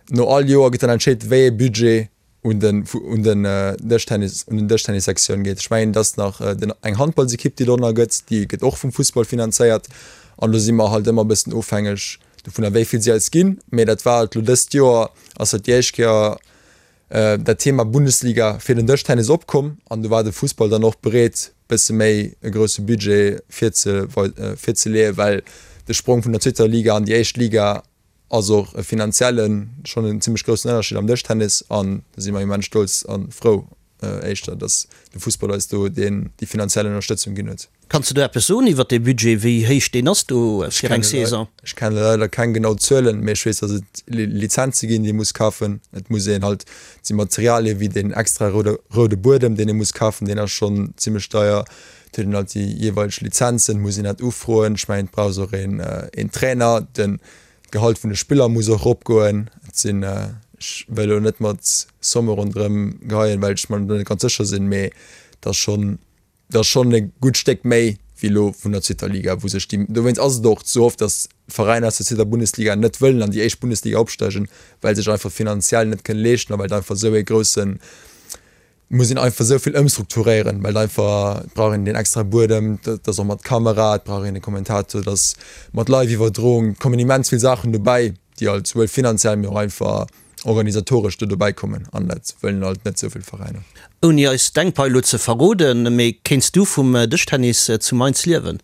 No all Joer gëtt dann entscheet, wéi ee Budget un den un den Dëschtennis un den Dëschtennissektioun geet. Ech mengen, et ass nach den eng Handballsekipp, déi dorënner gëtt, déi gëtt och vum Fussball finanzéiert. An do si mer halt ëmmer e bëssen ofhängeg dovunner, wéi vill si eis ginn. Mee dat war halt elo dëst Joer ass dat déi éischt Kéier dat Thema Bundesliga fir den Dëschtennis opkomm an do war de Fussball dann och bereet, bësse méi e grousse Budget virzeleeën, well de Sprong vun der zweeter Liga an déi éischt Liga ass och e finanziellen schonn en zimmlech groussen Ënnerscheed am Dëschtennis an do si mer immens stolz a frou éischter, datt de Fussball eis do deen déi finanziell Ënnerstëtzung ginn huet. Kanns de do eppes soen iwwer dee Budget, wéi héich deen ass do fir eng Saison? Ech kenne leider keng genau Zuelen, mee ech weess, datt et Lizenze ginn, déi ee muss kafen. Et muss een halt, et si Materialie wéi deen extra roude roude Buedem, deen ee muss kafen, deen ass schonn zimmlech deier. Et huet een halt déi jeeweileg Lizenzen, muss een dat ufroen. Ech mengen, et brauchs och een een Trainer, den d'Gehalt vun de Spiller muss och eropgoen. Et sinn, ech wëll elo net mat Somme ronderëm geheien, well ech mer do net ganz sécher sinn, mee et ass schonn, et ass schonn e gutt Stéck méi wéi elo vun der zweeter Liga, wou sech déi, dowéinst ass et och sou oft, datt Veräiner aus der zweeter Bundesliga net wëllen an déi éischt Bundesliga opsteigen, well se sech einfach finanziell net kënne leeschten a well et einfach esou ee groussen muss een einfach esou vill ëmstrukturéieren, well einfach, et brauch een deen extrae Buedem, dat ass och mat Kamera, et brauch een e Kommentator, et ass mat Live-Iwwerdroung, et kommen immens vill Saachen dobäi, déi halt souwuel finanziell, mee och einfach organisatoresch do dobäi kommen an dat wëllen halt net esou vill Veräiner. Ouni eis deng Pai lo ze verroden, mee kéints du vum Dëschtennis zu Mainz liewen?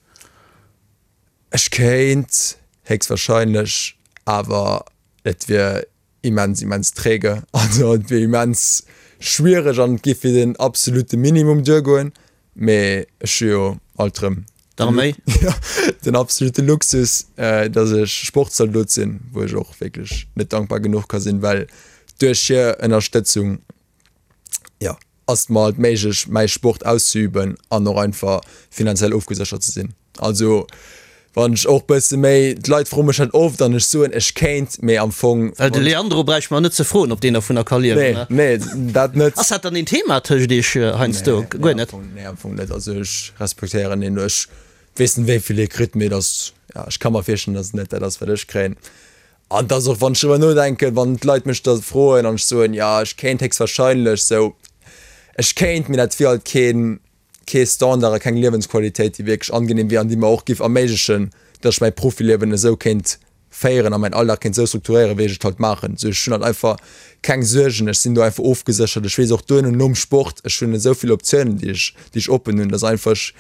Ech kéint héchstwahrscheinlech, awer et wier immens immens träge, also et wier immens schwiereg an et géif fir den absolute Minimum duergoen, mee ech hu jo alt rëm D'Arméi? den absolute Luxus, datt ech Sportzaldot sinn, wou ech och wierklech net dankbar genuch ka sinn, well duerch hir Ënnerstëtzung, jo, ass et mer halt méiglech mäi Sport auszeüben an och einfach finanziell ofgeséchert ze sinn. Also wann ech och bësse méi, d'Leit froe mech dat oft an ech soen ech kéint, mee am Fong. Well de Leandro bräicht mer net ze froen ob deen dervunner ka liewen, Nee, nee, dat net. Ass dat dann een Thema tëscht iech heiansdo? Guer net? Nee, am Fong net. Also ech respektéieren hien, ech weess net wéi vill hie kritt, mee et ass, ja, ech ka mer virstellen, datt et net dat ass wat ech kréien. An et ass och, wann ech driwwer nodenken, wann d'Leit mech da froen an ech soen, jo ech kéint héchstwahrscheinlech sou, ech kéint, mee dat wier halt keen, kee Standard a keng Liewensqualitéit, déi wierklech angenehm wier an déi mer och géif erméiglechen, datt ech mäi Profiliewen esou kéint féieren a mäin Alldag kéint esou strukturéieren, wéi ech et halt maachen. Sou ech hunn halt einfach keng Suergen, ech sinn do einfach ofgeséchert, ech weess och duerno nom Sport, ech hunn esou vill Optiounen, déi ech, déi ech oppen hunn, datt einfach ech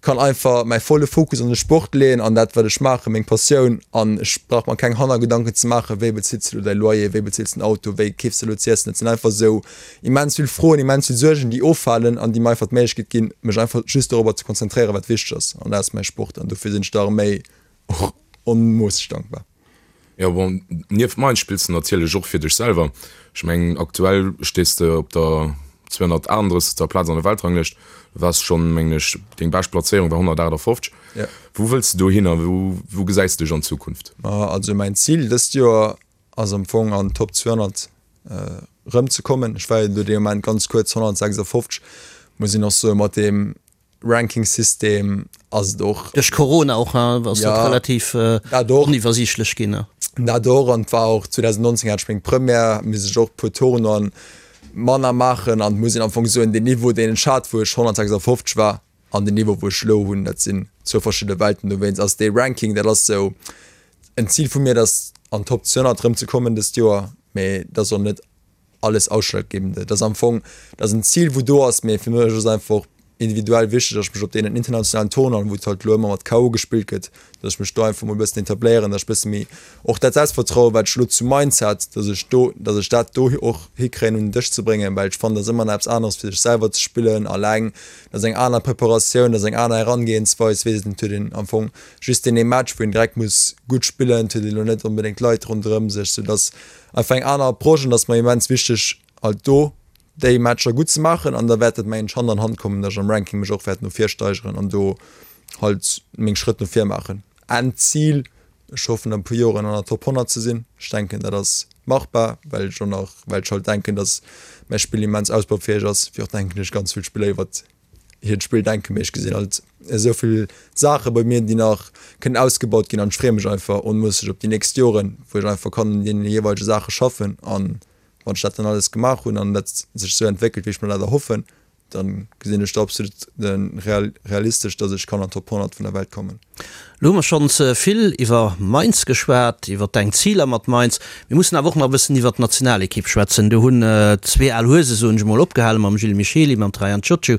kann einfach mäi volle Fokus an de Sport leeën, an dat wat ech maachen, meng Passioun, an ech brauch mer keng Hannergedanken ze maachen, wéi bezills de elo däi Loyer, wéi bezills de den Auto, wéi keefs de elo z'iessen. Et sinn einfach esou immens vill Froen, immens vill Suergen, déi offalen an déi mer einfach d'Méiglechkeet ginn, mech einfach just dorobber ze konzentréieren, wat wichteg ass, an dat ass mäi Sport. An dofir sinn ech der Arméi och onmoosseg dankbar. Jo bon, nieft Mainz spills de natierlech och fir dech selwer. Ech mengen aktuell stees de op der 238. Plaz an der Weltranglëscht. Du waars schonn, mengen ech, deng bescht Plazéierung war 158. Ja. Wou wëlls de dohin a wou, wou gesäis de dech an Zukunft? Ma also mäin Zil dëst Joer ass am Fong an d'Top 200 erëm ze kommen. Ech war jo do dee Moment ganz kuerz 156, muss een och soen, mat deem Ranking-System ass et och. Duerch Corona och, hein, ass dat relativ oniwwersiichtlech ginn. Dat och, an et war och 2019 hat ech meng Première, misst ech och e puer Tournoien manner maachen an et muss een am Fong soen, deen Niveau deen ech hat wou ech 156 war an den Niveau wou ech elo hunn, dat sinn zwou verschidde Welten. Dowéinst ass dee Ranking, dat ass sou en Zil vu mir, dass an d'Top 200 erëm ze kommen dëst Joer, mee dat ass och net alles ausschlaggebende. Dat ass am Fong, dat ass en Zil wou do ass, mee fir mech ass einfach och individuell wichteg, datt ech mech op deenen internationalen Tournoien, wou et halt elo ëmmer mat KO gespillt gëtt, datt ech mech do einfach mol e bëssen etabléieren, datt ech e bësse méi och dat Selbstvertrauen, wat ech elo zu Mainz hat, datt ech do, datt ech dat do och hikréien un den Dësch ze bréngen, well ech fannen, dat ass ëmmer nach eppes aneres fir sech selwer ze spillen alleng, dat ass eng aner Preparatioun, dat ass eng aner Herangehensweis, weess et huet een am Fong just deen ee Match, wou een direkt muss gutt spillen, et huet een elo net onbedéngt Leit ronderëm sech, soudatt Einfach eng aner Approche an et ass mer immens wichteg halt do déi Matcher gutt ze maachen an da wäert et mengen ech Hand an Hand kommen, datt ech am Ranking mech och wäert no vir steigeren an do halt meng Schrëtt no vir maachen. Endzil, ech hoffen an e puer Joren an der Top 100 ze sinn. Ech denken dat ass machbar, well ech och nach, well ech halt denken, datt mäi Spill immens ausbaufäeg ass, wéi och denken ech ganz vill Spiller iwwert hiert Spill denken, mee ech gesinn halt esou vill Saache bei mir, déi nach kënnen ausgebaut ginn an ech freeë mech einfach onmoosseg op déi nächst Joren, wou ech einfach kann un deene jeeweilege Saache schaffen an wann ech dat dann alles gemaach hunn an dat sech esou entwéckelt, wéi ech mer dat erhoffen, dann gesinn ech do absolut realistesch, dass ech kann an d'Top 100 vun der Welt kommen. Lo hu mer schonns vill iwwer Mainz geschwat, iwwer deng Ziler mat Mainz. Mir mussen awer och nach e bëssen iwwer d'Nationalekipp schwätzen. Do hunn zwee al Huese, soen ech emol, opgehale mam Gilles Michely, mam Traian Ciociu.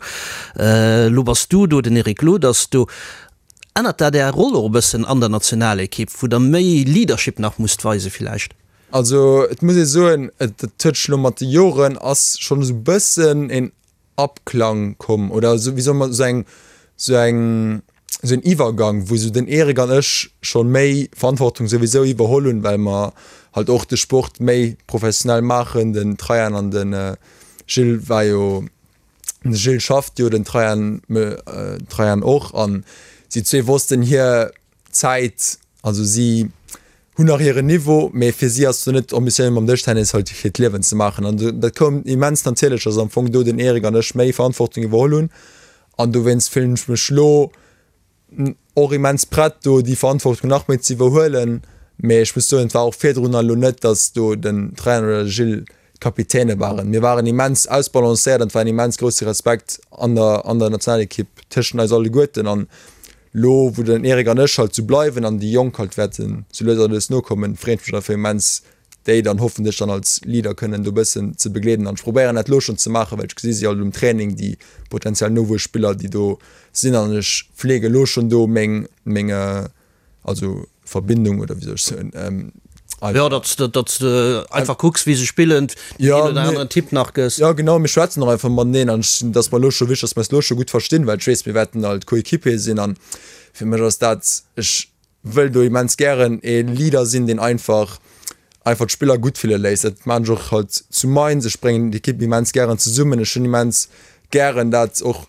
Lo bass du do, den Eric Lod ass do. Ännert dat Är Roll och e bëssen an der Nationalekipp, wou der méi Leadership nach musst weise villäicht? Also et muss ee soen, et huet sech elo mat de Joren ass schonn esou e bëssen een Abklang komm oder esou, wéi soll mer, esou eng, esou eng, esou en Iwwergang, wou esou den Eric an ech scho méi Verantwortung souwisou iwwerholl hunn, well mer halt och de Sport méi professionell maachen. Den Traian an de Gilles war jo, de Gilles schafft jo, den Traian, Traian och, an si zwee wossten hir Zäit, also si hunn nach hiren Niveau, mee fir si ass et net d'Ambitioun mam Dëschtennis halt hiert Liewen ze maachen. An dat koum immens natierlech, dass am Fong do den Eric an ech méi Verantwortung iwwerholl hunn. An dowéinst fillen ech mech lo och immens prett do déi Verantwortung nach méi ze iwwerhuelen. Mee ech muss soen, et war och virdrun elo net, dass do den Trainer oder de Gilles d'Kapitäne waren. Mir waren immens ausbalancéiert an et war en immens grousse Respekt an der an der Nationalekipp tëschent eis alleguerten. An lo wou den Eric an ech halt sou bleiwen an déi Jonk halt wäerten sou lues a lues nokommen, freet mech einfach immens déi dann hoffentlech dann als Leader kënnen do bëssen ze begleeden. An ech probéieren dat lo schonn ze maachen, well ech gesi si alt um Training, déi potenziell Nowuesspiller déi do sinn an ech fleege lo schonn do meng meng Also Verbindung oder wéi soll ech soen? Jo, datt s de einfach kucks, wéi se spillen, deen een oder aneren Tipp nach gëss. Jo, genau, mir schwätzen och einfach mateneen an ech, et ass mer elo scho wichteg, datt mer eis elo scho gutt verstinn, well ech weess, mir wäerten alt Coéquipier sinn an fir mech ass dat, ech wëll do immens gären ee Leader sinn, deen einfach einfach d'Spiller gutt fille léisst. Dat maan ech och halt zu Mainz, ech bréngen d'Ekipp immens gären zesummen, ech hunn immens gären dat och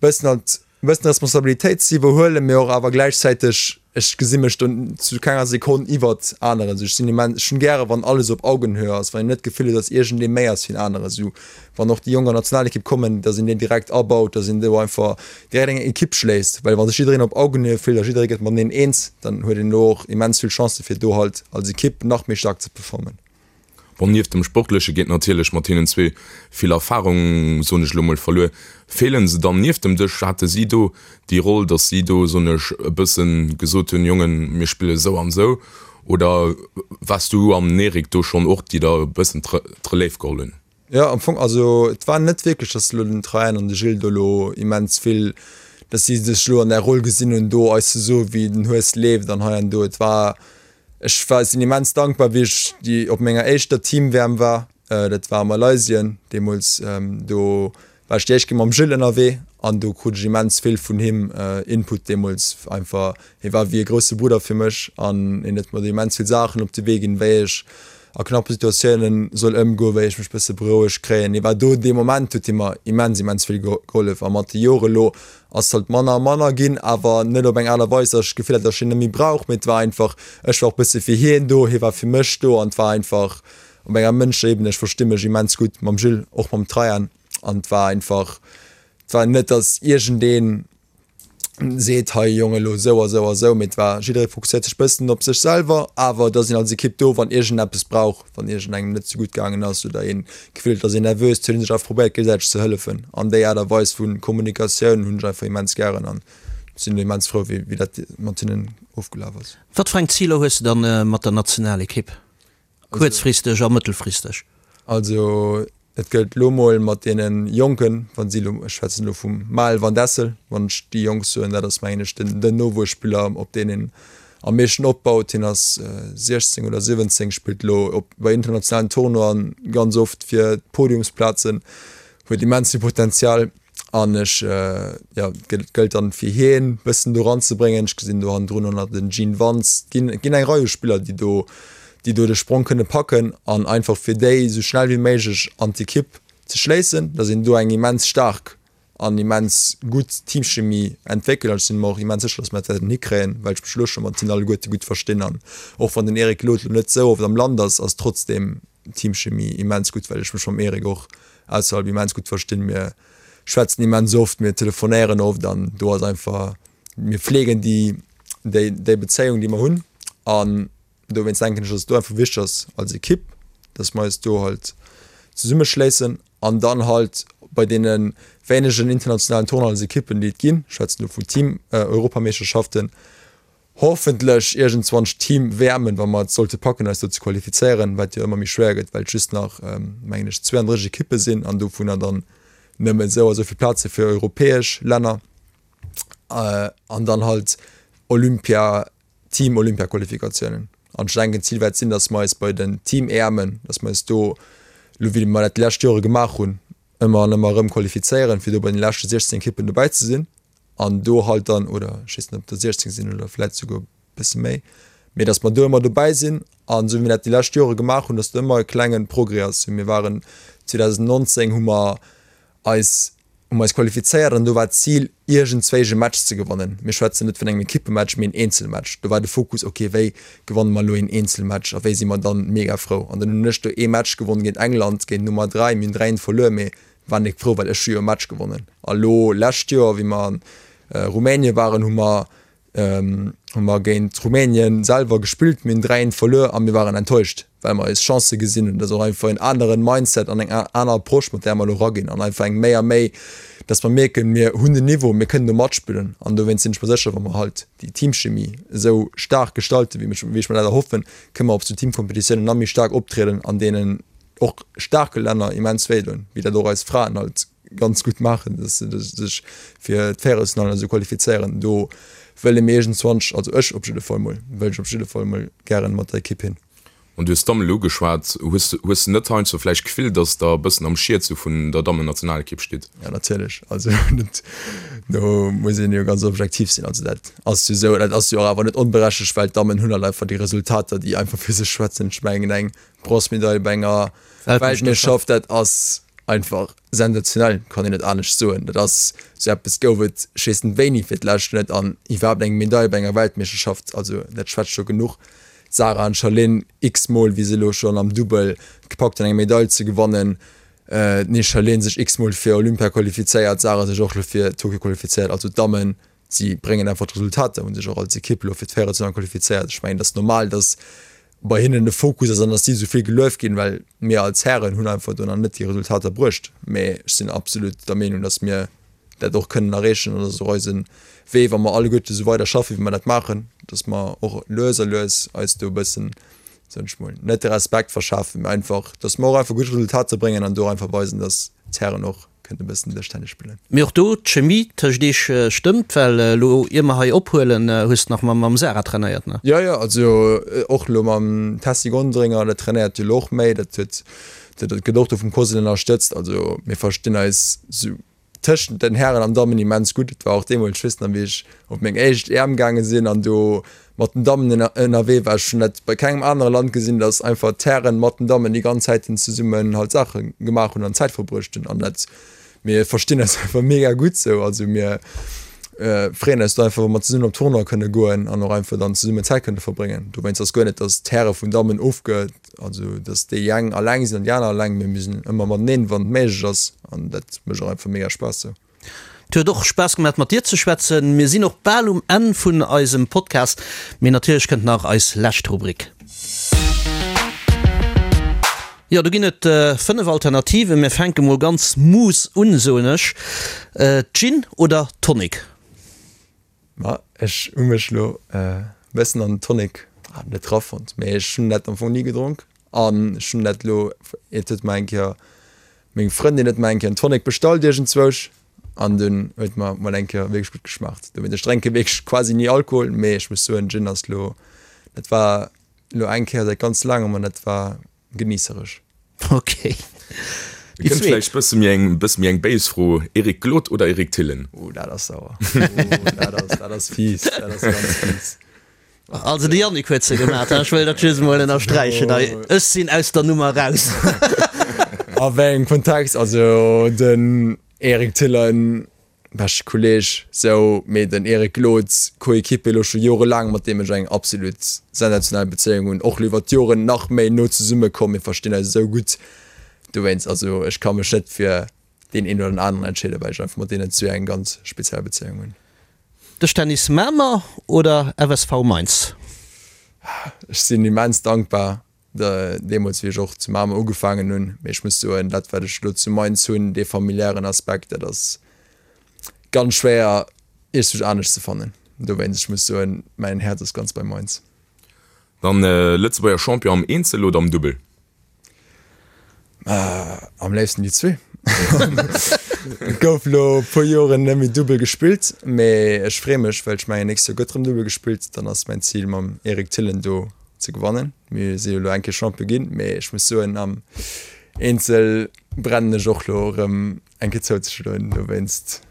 bëssen halt E bëssen Responsabilitéit ze iwwerhuelen, mee och awer gläichzäiteg, ech gesi mech do zu kenger Sekonn iwwert aneren. Esou, ech sinn immens, ech hunn gäre wann alles op Augenhöhe ass, wann een net d'Gefill huet, datt iergendee méi ass wéi en anere. Esou, wann och déi Jonk an d'Nationalekipp kommen, datt een déi direkt abaut, datt een do einfach direkt eng Ekipp schléisst, well wa sech jiddereen op Augenhöhe fillt a jidderee gëtt mateneen eens, dann huet een do och immens vill Chancë fir do halt als Ekipp nach méi staark ze performen. Bon, nieft dem Sportleche geet natierlech mat hinnen zwee vill Erfarung, soen ech elo mol, verluer. Feelen se dann nieft dem Dësch? Hate si do déi Roll, datt si do, soen ech, e bëssen gesot hunn, Jongen, mir spille sou an sou? Oder waars du an den Eric do schonn och déi da e bëssen d'Relève geholl hunn? Jo, am Fong, also et war net wierklech, datt elo den Traian an de Gilles do elo immens vill, datt si sech elo an där Roll gesinn hunn, do eis ze soen, wéi den Hues leeft an hei an do. Et war Ech war sinn immens dankbar wéi ech déi op menger éischter Team-WM war, dat war a Malaysien deemools. Do war ech déi éischt Kéier mam Gilles ënnerwee. An do krut ech immens vill vun him Input deemools. Einfach, hie war wéi e grousse Brudder fir mech an hien huet mer do immens vill Saachen op de Wee ginn, wéi ech a knappe Situatiounen soll ëmgoen, wéi ech mech bësse berouegt kréien. Hie war do, dee Moment huet hie mer immens, immens vill gehollef. A mat de Jore lo ass et halt manner a manner ginn, awer net op eng Aart a Weis, datt ech d'Gefill hat, datt ech hien net méi brauch, mee et war einfach, ech war och bësse fir hien do, hie war fir mech do an et war einfach op enger mënschlecher Ebene, ech versti mech immens gutt mam Jules, och mam Traian. An et war einfach, et war net, datt iergendeen seet, hei Jong, elo esou a sou a sou, mee et war, jidderee fokusséiert sech bëssen op sech selwer, awer et ass een als Ekipp do, wann iergendeppes brauch, wann iergendengem net sou gutt gaangen ass oder een d'Gefill huet, et ass een nervös, huet ee sech einfach probéiert géigesäiteg ze hëllefen. An déi Aart a Weis vu Kommunikatioun hunn ech einfach immens gären an sinn immens frou, wéi wéi dat mat hinnen ofgelaf ass. Wat fir eng Ziler hues de dann mat der Nationalekipp? Kuerzfristeg a mëttelfristeg. Also et gëllt elo mol mat deene Jonken, wa si elo, ech schwätzen elo vum Maël Van Dessel, wann ech déi Jonk soen, dat ass mengen ech den den Nowuesspiller op deen een am meeschten opbaut. Hien ass 16 oder 17, spillt elo op bei internationalen Tournoien ganz oft fir d'Podiumsplazen, huet immens vill Potenzial. An ech, jo, et gëllt dann fir hien bëssen do ranzebréngen. Ech gesinn do hannendrun och nach den Gene Wantz. Et ginn, et ginn eng Rei u Spiller, déi do, déi do de Sprong kënne packen an einfach fir déi esou schnell wéi méiglech an d'Ekipp ze schléissen, datt een do eng immens staark an immens gutt Teamchemie entwéckelt. An ech sinn mer och immens sécher, datt mer dat wäerten hikréien, well ech mech elo scho mat hinnen alleguerte gutt verstinn. An och wann den Eric Lod elo net esou oft am Land ass, ass trotzdeem Teamchemie immens gutt, well ech mech mam Eric och ausserhalb immens gutt verstinn. Mir schwätzen immens oft, mir telefonéieren oft an do ass einfach, mir fleegen déi, déi, déi Bezéiung, déi mer hunn. An dowéinst denken ech, dass et do einfach wichteg ass als Ekipp, dass mer eis do halt zesummeschléissen an dann halt bei deene wéinegen internationalen Tournoien als Ekippen, déi et ginn, ech schwätzen do vun Team-Europameeschterschaften, Hoffentlech iergendzwann Team WMen, wa mer et sollte packen eis do ze qualifizéieren, wat jo ëmmer méi schwéier gëtt, well et just nach mengen ech 32 Ekippe sinn an dovunner dann nëmmen esou a sou vill Plaze fir europäesch Länner an dann halt Olympia, Team Olympia Qualifikatiounen. An ech denken d'Zil wäert sinn, datt mer eis bei den Team EMen, datt mer eis do, elo wéi mer dat déi lescht Jore gemaach hunn, ëmmer an ëmmer erëm qualifizéieren, fir do bei den leschte 16 Ekippen dobäi ze sinn. an do halt dann, oder ech weess net ob der 16 sinn oder vläit souguer e bësse méi, mee datt mer do ëmmer dobäi sinn an esou wéi mir dat déi lescht Jore gemaach hunn, datt do ëmmer e klenge Progrès ass. Mir waren 2019 hu mer eis hu mer eis qualifizéiert an do war d'Zil iergendzwéi e Match ze gewannen. Mir schwätzen net vun engem Ekippematch, mee en Eenzelmatch. Do war de Fokus, ok wéi gewanne mer elo een Eenzelmatch a wéi si mer dann mega frou. An dann hunn ech do ee Match gewonn géint England, géint Nummer 3, mir hunn 3, 1 verluer, mee war nik frou, well ech hu jo e Match gewonnen. A lo lescht Joer, wéi mer an Rumänien waren, hu mer hu mer géint Rumänien selwer gespillt, mir hunn 3, 1 verluer a mir waren enttäuscht, well mer eis Chancë gesinn hunn. Dat ass och einfach en aneren Mindset an eng aner Approche, mat där mer elo eraginn an einfach eng méi a méi, dass mer mierken, mir hunn den Niveau, mir kënnen do matspillen. An dowéinst sinn ech mer sécher, wa mer halt déi Teamchemie esou staark gestalten, wéi ech mer dat erhoffen, kënne mer op sou Teamkompetitiounen nach méi staark optrieden an deenen och staarke Länner immens wéi doen, wéi dat och eis Fraen halt ganz gutt maachen, dass se sech fir d'Véierelsfinallen esou qualifizéieren. Do wëlle mir iergendzwanch, also ech op jidde Fall mol, wëll ech op jidde Fall mol gären mat der Ekipp hin. An du hues d'Damme elo ugeschwat. Hues de, hues de net heiansdo vläicht d'Gefill, dass Der e bëssen am Schiet sou vun der Dammennationalekipp stitt? Jo, natierlech. Also dat, do muss een jo ganz objektiv sinn. Also dat ass jo esou. Dat ass jo och awer net onberechtegt, well d'Dammen hunn halt einfach déi Resultater, déi einfach fir sech schwätzen. Ech mengen eng Bronzmedail bei enger Weltmeeschterschaft, dat ass einfach sensationell, kann een net anescht soen. Dat ass esou eppes gouf et ech weess net wéini fir d'lescht net an iwwerhaapt eng Medail bei enger Weltmeeschterschaft, also dat schwätzt scho genuch. D'Sarah an d'Charline x-mol, wéi se elo schonn am Dubbel gepackt hunn eng Medail ze gewannen, d'Charline sech x-mol fir Olympia qualifizéiert, d'Sarah sech och elo fir Tokio qualifizéiert, also d'Dammen si bréngen einfach d'Resultater, hu sech och als Ekipp elo fir d'Véierelsfinall qualifizéiert. Ech mengen et ass normal, datt bei hinnen de Fokus ass an dass si esou vill gelueft ginn, well mir als Hären hunn einfach do nach net déi Resultater bruecht. Mee ech sinn absolut der Meenung, dass mir dat och kënnen erreechen an dass och eise Wee, wa mer alleguerte esou weider schaffen, wéi mer dat maachen, dass mer och lues a lues eis do e bëssen, soen ech mol, net de Respekt verschafen, mee einfach, dass mer och einfach gutt Resultater bréngen an do einfach weisen, dass d'Hären och Kënnt e bëssen Dëschtennis spillen. Mee och do, d'Chemie tëscht iech stëmmt, well elo ier mer hei ophuelen, hues de nach mam Sarah trainéiert, ne? Jo, jo, also och elo mam Tessy Gonderinger, dat trainéiert jo elo och méi, dat huet, dat gëtt och do vum Cosel ënnerstëtzt. Also mir verstinn eis sou. tëschent den Hären an Dammen immens gutt. Et war och deemools, ech weess nach wéi ech op meng éischt EM gaange sinn an do mat den Dammen ënnerwee war. Ech hunn dat bei kengem anere Land gesinn, datt einfach d'Hären mat den Dammen déi ganz Zäiten zesummen halt Saache gemaach hunn an Zäit verbruecht hunn. An dat, mir verstinn eis einfach mega gutt sou. Also mir freeën eis do einfach, wa mer zesummen op Tournoi kënne goen an och einfach dann zesummen Zäit kënne verbréngen. Dowéinst ass guer net, datt d'Häre vun Dammen ofge, also datt déi eng alleng sinn an déi aner alleng, mee mir sinn ëmmer mateneen, wann et méiglech ass. An dat mécht och einfach mega Spaass sou. Et huet och Spaass gemaat mat dir ze schwätzen. Mir sinn och bal um Enn vun eisem Podcast, mee natierlech kënnt nach eis lescht Rubrik. Jo, do ginn et 5 Alternativen. Mir fänke mol ganz mouss un, soen ech. Gin oder Tonic? Ma ech hu mech lo e bëssen an den Tonic net rafonnt, mee ech hunn dat am Fong ni gedronk an ech hunn dat lo, et huet mer eng Kéier Meng Frëndin huet mer eng Kéier en Tonic bestallt iergendzwousch an dunn huet mer mol eng Kéier wierklech gutt geschmaacht. Dowéinst, ech drénke wierklech quasi ni Alkohol, mee ech muss soen, Gin ass lo, dat war lo eng Kéier säit ganz laangem an dat war geniissereg. Ok. Déi Kënnt vläicht bësse méi eng, bësse méi eng béis Fro, Eric Glod oder Eric Thillen? Oh, dat ass sauer. Oh, dat ass, dat ass fies, dat ass ganz fies. Also de Yannick huet se gemaat, ech wëll dat just emol ënnersträichen hei. Ech sinn aus der Nummer raus. A wéi engem Kontext? Also den Eric Thillen, beschte Kolleg, sou, mee den Eric Glod, Coéquipier elo scho jorelaang, mat deem ech eng absolut sensationell Bezéiung hunn, och elo iwwer d'Joren nach méi no zesumme komm, mir verstinn eis esou gutt. Dowéinst, also ech ka mech net fir deen een oder den aneren entscheeden, well ech einfach mat deenen zwee eng ganz speziell Bezéiung hunn. Dëschtennis Mamer oder FSV Mainz? Ech sinn immens dankbar, deemools wéi ech och zu Mamer ugefaangen hunn, mee ech muss soen, dat wat ech elo zu Mainz hunn, dee familiären Aspekt, dat ass ganz schwéier iergendwou anescht ze fannen. Dowéinst, ech muss soen, mäin Häerz ass ganz bei Mainz. Dann Lëtzebuerger Champion am Eenzel oder am Dubbel? Am léifsten déi zwee. Et gouf lo e puer Joren net méi Dubbel gespillt, mee ech freeë mech, well ech mengen nächst Joer gëtt rëm Dubbel gespillt. Dann ass mäin Zil mam Eric Thillen do ze gewannen. Mir si jo lo eng Kéier Champion ginn, mee ech muss soen am Eenzel brennen ech och lo rëm eng Kéier zouzeschloen. Dowéinst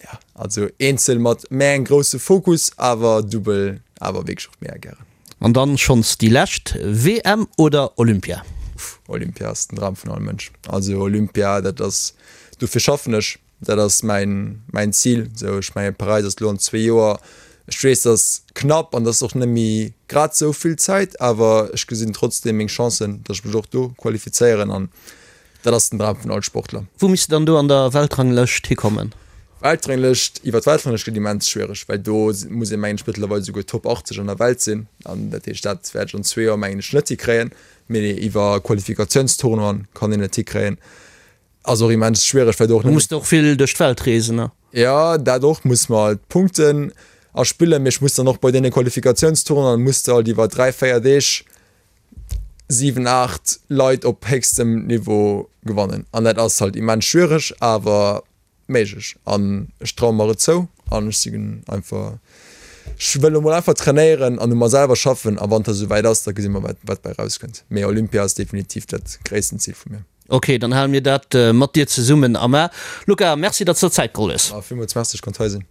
ja, also Eenzel mat méi engem grousse Fokus, awer Dubbel awer wierklech och mega gären. An dann schonns déi lescht, WM oder Olympia? Uff, Olympia ass den Dram vun all Mënsch. Also Olympia, dat ass, dofir schaffen ech, dat ass mäin, mäin Zil. Sou, ech mengen Paräis ass elo an zwee Joer. Ech weess, dat ass knapp an dat ass och net méi grad sou vill Zäit, awer ech gesinn trotzdeem meng Chancen, datt ech mech och do qualifizéieren an Dat ass den Dram vun all Sportler. Wou misst de dann do an der Weltranglëscht hikommen? Weltranglëscht, iwwer d'Weltranglëscht gëtt immens schwiereg, well do muss ee mengen ech mëttlerweil esouguer Top 80 an der Welt sinn. An dat heescht, dat wäert ech an zwee Joer mengen ech net hikréien. Mee iwwer Qualifikatiounstournoien kann een et hikréien. Ass och immens schwiereg, well do och net. Du muss och vill duerch d'Welt reesen, ne? Jo, dat och, muss mer halt Punkten erspillen. Mee ech muss dann och bei deene Qualifikatiounstournoien muss de halt iwwer 3, 4 Deeg 7, 8 Leit op héchstem Niveau gewannen an dat ass halt immens schwiereg, awer méiglech an ech traue mer et zou an ech sinn einfach, ech wëll elo mol einfach trainéieren an u mer selwer schaffen a wann et da souwäit ass, da gesi mer wat wat bei rauskënnt. Mee Olympia ass definitiv dat gréissten Zil vu mir. Ok, dann hale mir dat mat dir zesummen am A. Luca, Merci, datt s der Zäit geholl hues. Villmools Merci, ech konnt hei sinn.